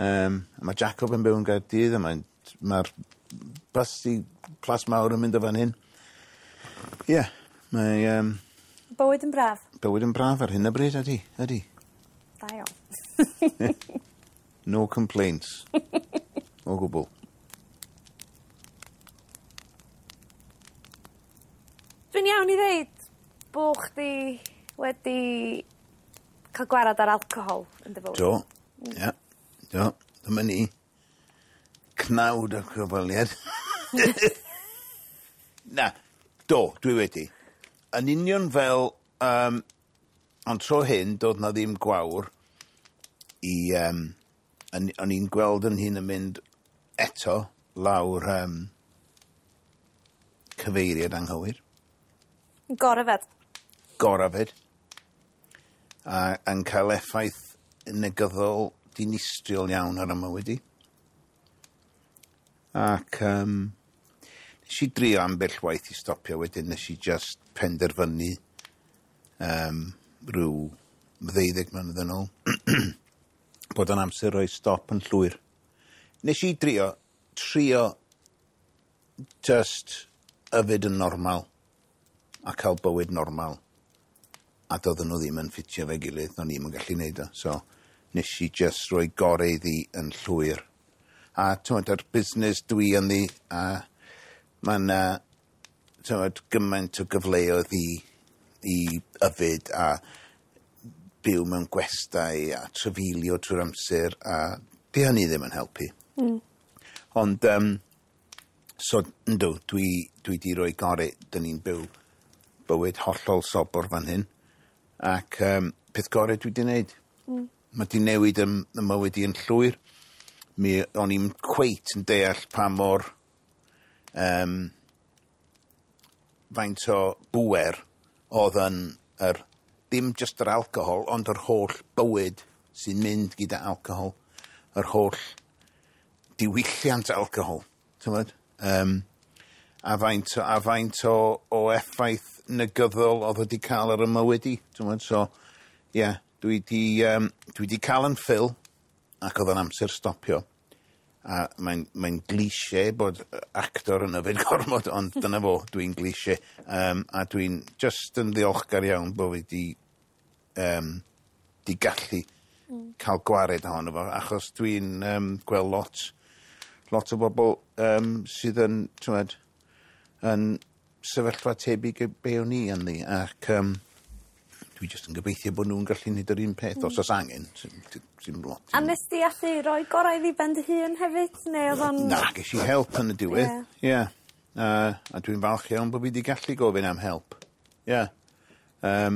A mae Jacob yn byw yn Gaerdydd, a mae'r bus i Plas Mawr yn mynd o fan hyn. Ie, yeah, mae Bywyd yn braf. Bywyd yn braf ar hyn o bryd, ydy, ydy. Da iawn. No complaints. O gwbl. Dwi'n iawn i ddeud bo chdi wedi cael gwarad ar alcohol yn dy fywyd? Do, ie, do, dyma ni. Cnawd o cyfweliad. Na, do, dwi wedi. Yn union fel, ond tro hyn, doedd na ddim gwawr i, o'n i'n gweld yn hun yn mynd eto lawr cyfeiriad anghywir. Goryfed. Goryfed. A yn cael effaith negyddol dinistriol iawn ar y mywyd i. Ac nes i drio ambell waith i stopio wedyn, nes i just penderfynu rhyw 12 mlynedd yn ôl bod yn amser rhoi stop yn llwyr. Nes i trio just yfed yn normal a cael bywyd normal. A doedden nhw ddim yn ffitio fe gilydd, o'n i'm yn gallu neud o. So, nes i just rhoi gorau iddi yn llwyr. A t'mod, yr busnes dwi ynddi, a mae'n t'mod, gymaint o gyfleoedd i yfed a byw mewn gwestai a trafeilio trwy'r amser, a di hynny ddim yn helpu. Ond, so, yndw, dwi di roi gorau, dyn ni'n byw bywyd hollol sobor fan hyn. Ac peth gorau dwi di wneud. Mae di newid y mywyd i yn llwyr. Mi o'n i'n cweit yn deall pa mor faint o bŵer oedd yn yr, ddim just yr alcohol, ond yr holl bywyd sy'n mynd gyda alcohol, yr holl diwylliant alcohol, t'mod? A faint o effaith negyddol oedd wedi cael ar y mywyd i, t'mod? So, ie, yeah, dwi di cael yn fill, ac oedd yn amser stopio. A mae'n cliché bod actor yn yfed gormod, ond dyna fo, dwi'n cliché. A dwi'n just yn ddiolchgar iawn bod fi di gallu cael gwared ohono fo, achos dwi'n gweld lot, lot o bobl sydd yn, t'mod, yn sefyllfa tebyg i be o'n i ynddi, ac dwi jyst yn gobeithio bod nhw'n gallu neud yr un peth os o's angen, sy'n lot. A nes di allu roi gorau iddi ben dy hun hefyd, neu oedd o'n? Na, ges i help yn y diwedd. Ie. Yeah. A dwi'n falch iawn bod fi 'di gallu gofyn am help. Ie. Yeah.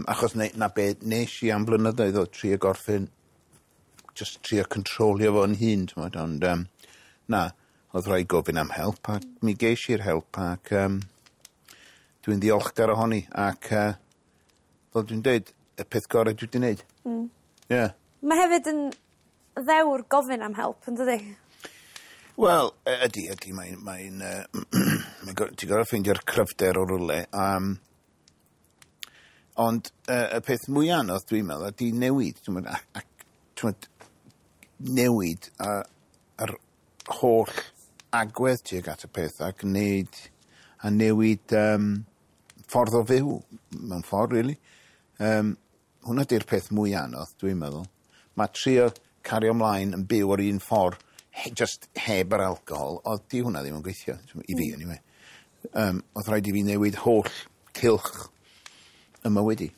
Achos na be nes i am blynyddoedd o trio gorffen, just trio controlio fo'n hun, t'mod, ond na, oedd rhaid gofyn am help a mi ges i'r help ac dwi'n ddiolchgar ohoni ac fel dwi'n deud, y peth gorau dwi 'di neud. Ie. Mae hefyd yn ddewr gofyn am help, yn dydi? Wel, ydy, mae'n ti'n gorfod ffeindio'r cryfder o rywle. Ond y peth mwy anodd, dwi'n meddwl, ydy newid. Ti'n gwbod, ac, ti'n newid yr holl agwedd tuag at y peth ac wneud a newid ffordd o fyw mewn ffordd, really. Hwnna di'r peth mwy anodd, dwi'n meddwl. Mae trio cario ymlaen yn byw o'r un ffordd, just heb yr alcohol, oedd di hwnna ddim yn gweithio, i fi, anyway. Oedd rhaid i fi newid holl cylch y mywyd i.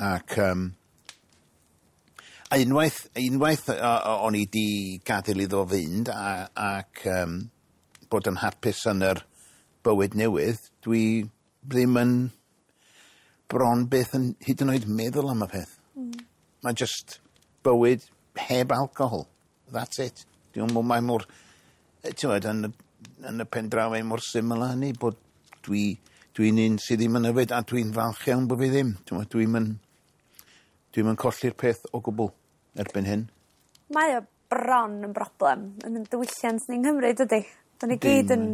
Ac a unwaith o'n i di gadael iddo fynd ac bod yn hapus yn yr bywyd newydd, dwi ddim yn bron beth yn hyd yn oed meddwl am y peth. Mae just bywyd heb alcohol. That's it. Dwi'n meddwl mae mor, ti'n gwbod, yn y pen draw mae mor syml â hynny, bod dwi'n un sydd ddim yn yfed a dwi'n falch iawn bod fi ddim. Ti'n gwbod, dwi'n colli'r peth o gwbl erbyn hyn. Mae o bron yn broblem yn y diwylliant ni'n Nghymru, dydy? Da ni gyd yn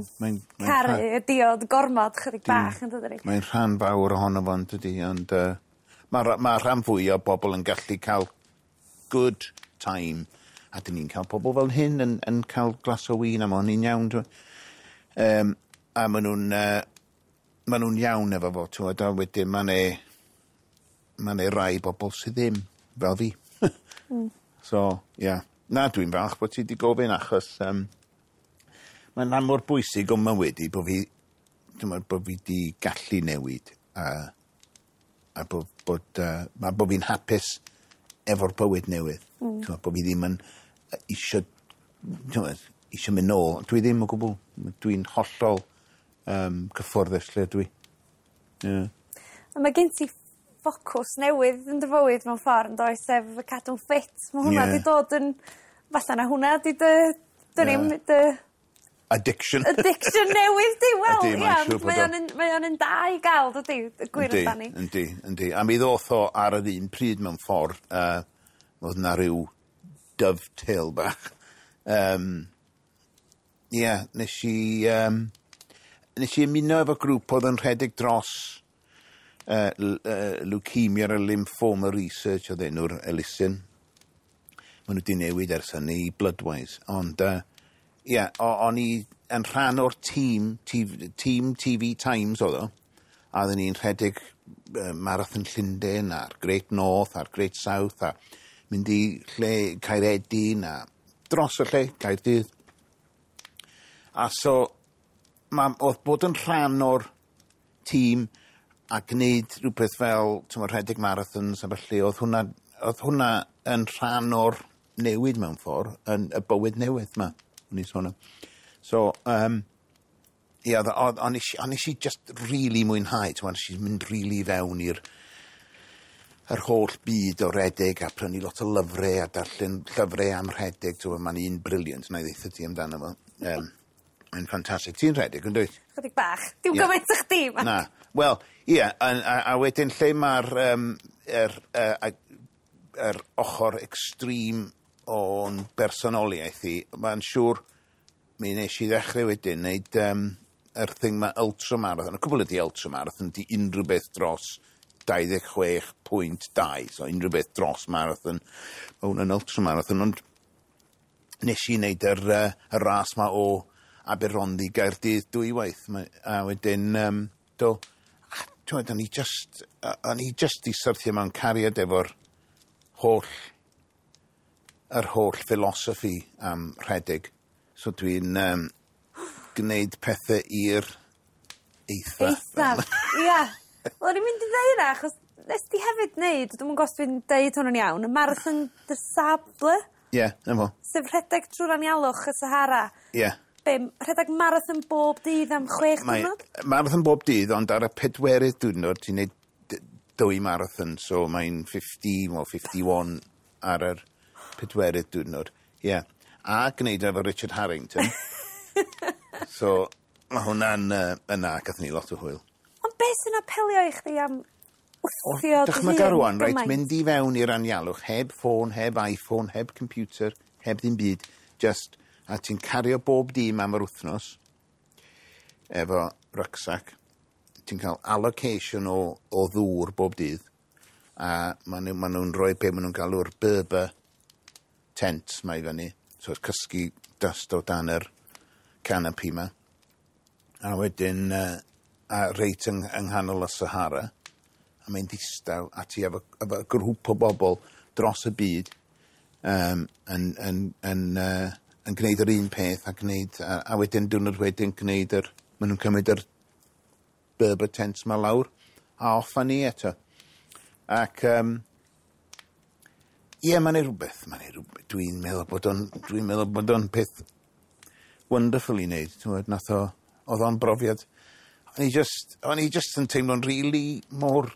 caru y diod gormod chydig bach, yn dydy? Mae'n rhan fawr ohono fo, yn dydy, ond mae rhan fwy o bobl yn gallu cael good time a dyn ni'n cael pobl fel hyn yn cael glas o win a ma' hynny'n iawn. A ma' nhw'n iawn efo fo, t'mod, a wedyn ma' 'ne rai bobl sydd ddim, fel fi. So, ie. Yeah. Na, dwi'n falch bod ti wedi gofyn achos mae'n rhan mor bwysig o'n mywyd i bod fi, dwi'n meddwl bod fi wedi gallu newid a bod fi'n hapus efo'r bywyd newydd. T'mod, bod fi ddim yn isio, t'mod, isio mynd nôl. Dwi ddim o gwbl. Dwi'n hollol cyfforddus lle dwi. Yeah. A mae gen ti ffocws newydd yn dy fywyd mewn ffordd, yn does, sef cadw'n ffit. Mae hwnna 'di dod yn... Falle na hwnna 'di dy... Dwn i'm, dy Addiction. Addiction newydd di, wel, Ydi, mae'n ia, siŵr bod mae o. o'n un da i gael, dydi, y gwir amdani. Yndi. A mi ddoth o ar yr un pryd mewn ffordd, oedd na ryw dovetail bach. Ie, nes i ymuno efo grŵp oedd yn rhedeg dros Leukemia a Lymphoma Research oedd enw'r elusen. Maen nhw wedi newid ers hynny i Bloodwise. Ond, ie, o'n i yn rhan o'r tîm, TV, tîm TV Times oedd o, a oedden ni'n rhedeg Marathon Llundain a'r Great North a'r Great South a mynd i lle Caeredin a dros y lle, Caerdydd. A so, oedd bod yn rhan o'r tîm a gwneud rhywbeth fel, ti'n rhedeg marathons a felly, oedd hwnna yn rhan o'r newid mewn ffordd, yn y bywyd newydd ma, o'n i'n sôn am. So, ie, o'n i just really mwynhau, ti'n nes i mynd really fewn i'r yr holl byd o redeg a prynu lot o lyfrau a darllen llyfrau am rhedeg, ti'n mae'n un brilliant, na i ddeutha ti amdano fo. Mae'n ffantastig. Ti'n rhedeg, yn dwyt? Chydig bach. Dim gymaint o chdi, ma. Na. Wel, ie, a wedyn lle mae'r yr ochr extreme o'n bersonoliaeth i, mae'n siŵr mi nes i ddechrau wedyn wneud yr thing ma ultramarathon. Y cwbl ydi ultramarathon, di unrhyw beth dros 26.2, so unrhyw beth dros marathon, mae hwnna'n ultramarathon, ond nes i wneud y ras ma o Aberhonddu i Gaerdydd dwywaith. A wedyn, do, a, t'mod, o'n i just i syrthio mewn cariad efo'r holl philosophy am rhedeg. So dwi'n gwneud pethau i'r eitha. Eithaf, ia. Wel, o'n i'n mynd i ddeud hynna, achos nes di hefyd wneud, dwi'm yn gwybod os dwi'n deud hwn yn iawn, y Marathon des Sables. Ie, yeah, 'na fo. Sef rhedeg trwy'r anialwch y Sahara. Ie. Yeah. Be, rhedeg marathon bob dydd am 6 diwrnod? Marathon bob dydd, ond ar y pedwerydd diwrnod ti'n neud 2 marathon, so mae'n 50 or 51 ar yr pedwerydd diwrnod. Ie. Yeah. A gwneud efo Richard Harrington. So, mae hwnna'n yna, gathon ni lot o hwyl. Ond beth sy'n apelio i chdi am wthio dy hun? Dychmyga rwan, reit, mynd i fewn i'r anialwch, heb ffôn, heb iPhone, heb computer, heb ddim byd, just, a ti'n cario bob dim am yr wythnos, efo rucksack, ti'n cael allocation o ddŵr bob dydd, a maen nhw'n rhoi be maen nhw'n galw'r Berber tent ma i fyny, so it's cysgu dust o dan yr canopy ma. A wedyn, a reit yng nghanol y Sahara, a mae'n ddistaw, a ti efo grŵp o bobl dros y byd yn gwneud yr un peth, a gwneud, a wedyn diwrnod wedyn gwneud yr, maen nhw'n cymryd yr Berber tents ma lawr, a off â ni eto. Ac, ie, mae'n ei rhywbeth, dwi'n meddwl bod o'n peth wonderful i wneud, ti'n gwbod, nath o, oedd o'n brofiad. O'n i just yn teimlo'n really mor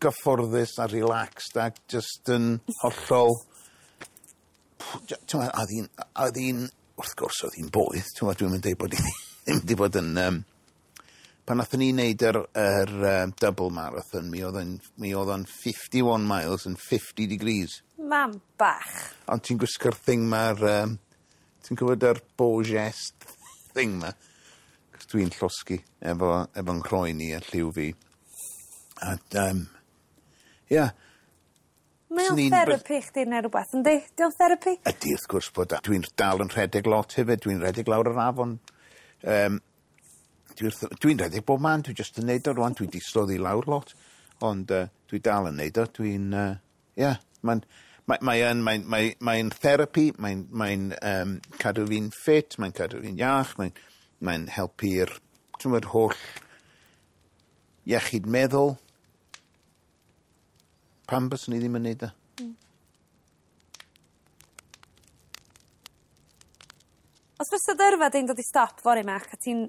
gyfforddus a relaxed ac just yn hollol, ti'n gwbod, oedd hi'n, wrth gwrs oedd hi'n boeth, ti'n gwbod, dwi'n mynd deud bod hi ddim wedi bod yn, pan nathon ni wneud yr double marathon, mi oedd o'n 51 miles and 50 degrees. Mam bach. Ond ti'n gwisgo'r thing ma'r, ti'n gwybod yr Borges thing ma? Cos dwi'n llosgi efo nghroen i a lliw fi. A, ia. Mae o'n therapi chdi neu rhywbeth, yndi? Di o'n therapi? Ydy, wrth gwrs bod. Dwi'n dal yn rhedeg lot hefyd. Dwi'n rhedeg lawr yr afon. Dwi'n rhedeg bob man. Dwi jyst yn neud o rwan. Dwi di slofi lawr lot. Ond dwi dal yn neud o. Dwi'n, ia, mae'n therapi, mae'n cadw fi'n ffit, mae'n cadw fi'n iach, mae'n helpu'r, ti'n gwbod, holl iechyd meddwl. Pam byswn i ddim yn neud o? Os fysa dy yrfa di'n dod i stop fory, Mac, a ti'n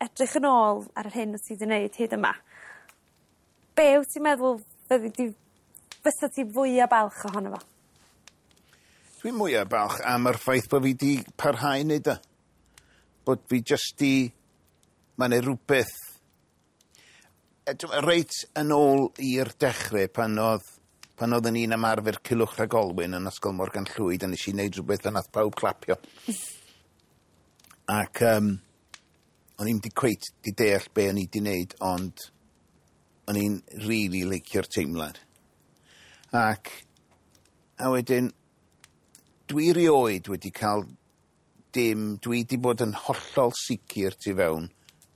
edrych yn ôl ar yr hyn wyt ti wedi wneud hyd yma, be wyt ti'n meddwl fyddi di, fysa ti fwyaf balch ohono fo? Dwi'n mwyaf balch am yr ffaith bod fi di parhau wneud o. Bod fi jyst di, mae'n ei rhywbeth, reit yn ôl i'r dechrau pan oedd yn un ymarfer Culhwch Rhag Olwyn yn Ysgol Morgan Llwyd, a nes i wneud rhywbeth a nath pawb clapio. Ac o'n i'm di cweit di deall be o'n i di wneud, ond o'n i'n really licio'r teimlad. Ac a wedyn, dwi rioed wedi cael dim, dwi di bod yn hollol sicr tu fewn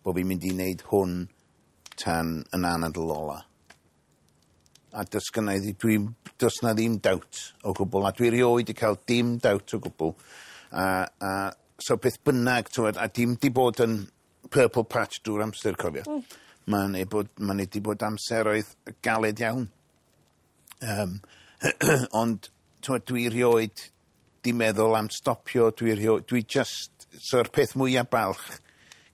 bod fi'n mynd i wneud hwn tan yn anadl ola. A does gynna i does na ddim doubt o gwbl, a dwi rioed wedi cael dim doubt o gwbl. A so beth bynnag, ti'n gwbod, a dim di bod yn purple patch drwy'r amser, cofio. Mae'n wedi bod amseroedd galed iawn. Ond ti'n gwbod, dwi rioed di meddwl am stopio, dwi just, so'r peth mwyaf balch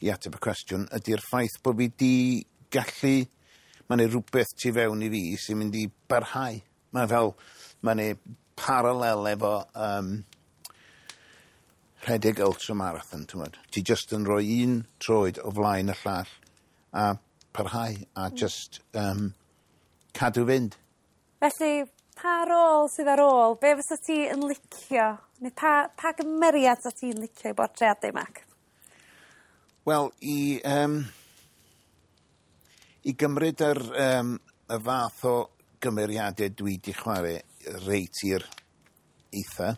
i ateb y cwestiwn ydy'r ffaith bod fi di gallu, mae'n ei rhywbeth tu fewn i fi sy'n mynd i barhau. Mae'n fel, mae'n ei parallel efo rhedeg ultramarathon, ti'n gwbod. Ti just yn rhoi un troed o flaen y llall a parhau a just cadw fynd. Felly, pa rôl sydd ar ôl? Be fysa ti yn licio? Neu pa gymeriad sa ti'n licio i bortreadu, Mac? Wel, i gymryd yr y fath o gymeriadau dwi di chwarae reit i'r eitha.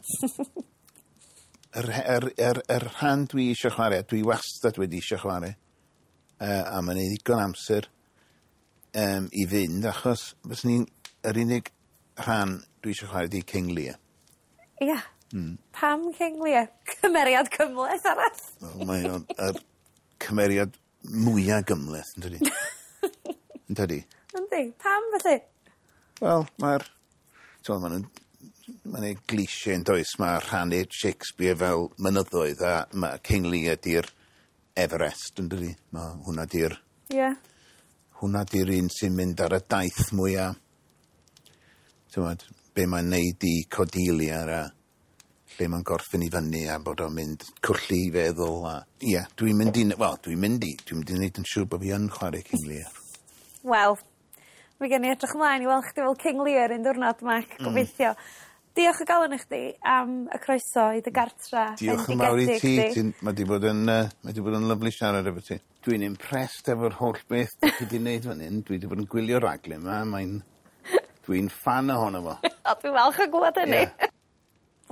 Yr rhan dwi eisiau chwarae, dwi wastad wedi eisiau chwarae, a mae'n ei ddigon amser i fynd, achos fyswn i'n, yr unig rhan dwi eisiau chwarae di King Lear. Ia. Pam King Lear? Cymeriad cymhleth arall. Wel, mae o'n yr cymeriad mwya gymhleth, yn dydi? Yn dydi? Yndi. Pam felly? Wel, mae'r... T'mo' ma' nw'n mae'n ei cliché yn does, mae rhannu Shakespeare fel mynyddoedd a ma' King Lear 'di'r Everest, yn dydi? Ma' hwnna 'di'r... Ie. Hwnna 'di'r un sy'n mynd ar y daith mwya t'mod, be' mae'n neud i Cordelia a lle mae'n gorffen i fyny a bod o'n mynd colli 'i feddwl a ie, dwi'n mynd i wel, dwi'n mynd i dwi'n mynd i neud yn siŵr bo' fi yn chware King Lear. Wel, mi gen i edrych ymlaen i weld chdi fel King Lear un diwrnod, Mark, gobeithio. Diolch o galon i chdi am y croeso i dy gartra. Diolch yn fawr i ti. Ti'n ma' 'di bod yn ma' 'di bod yn lyfli siarad efo ti. Dwi'n impressed efo'r holl beth 'dych chi 'di neud fan 'yn. Dwi 'di bod yn gwylio raglen 'ma mae'n dwi'n ffan ohono fo. O, dwi'n falch o glwad hynny. Ie.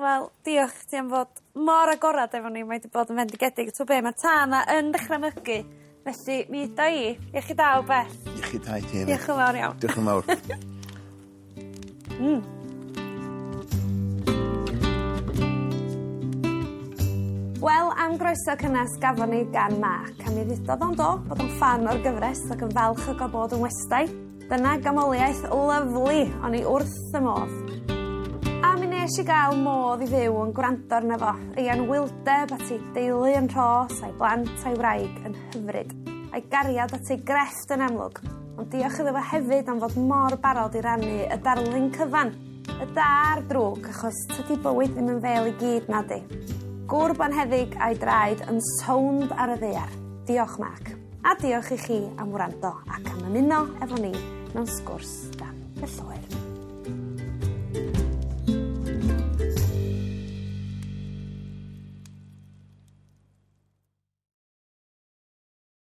Wel, diolch ti am fod mor agorad efo ni, mae 'di bod yn fendigedig. T'o' be' ma'r tân 'na yn dechra mygu, felly mi uda i. Iechyd da o bell. Iechyd da i ti hefyd. Diolch yn fawr iawn. Diolch yn fawr. Wel, am groeso cynnes gafon ni gan Mark, a mi ddudodd o'n do bod o'n ffan o'r gyfres ac yn falch o gael bod yn westai. Dyna gamoliaeth lyfli, o'n i wrth y modd. A mi nes i gael modd i fyw yn gwrando arno fo, ei anwyldeb at ei deulu yn rhos, a'i blant a'i wraig yn hyfryd, a'i gariad at ei grefft yn amlwg, ond diolch iddo fo hefyd am fod mor barod i rannu y darlun cyfan, y da a'r drwg, achos tydi bywyd ddim yn fel i gyd na di. Gŵr bonheddig a'i draed yn sownd ar y ddaear. Diolch, Mark. A diolch i chi am wrando ac am ymuno efo ni mewn sgwrs dan y lloer.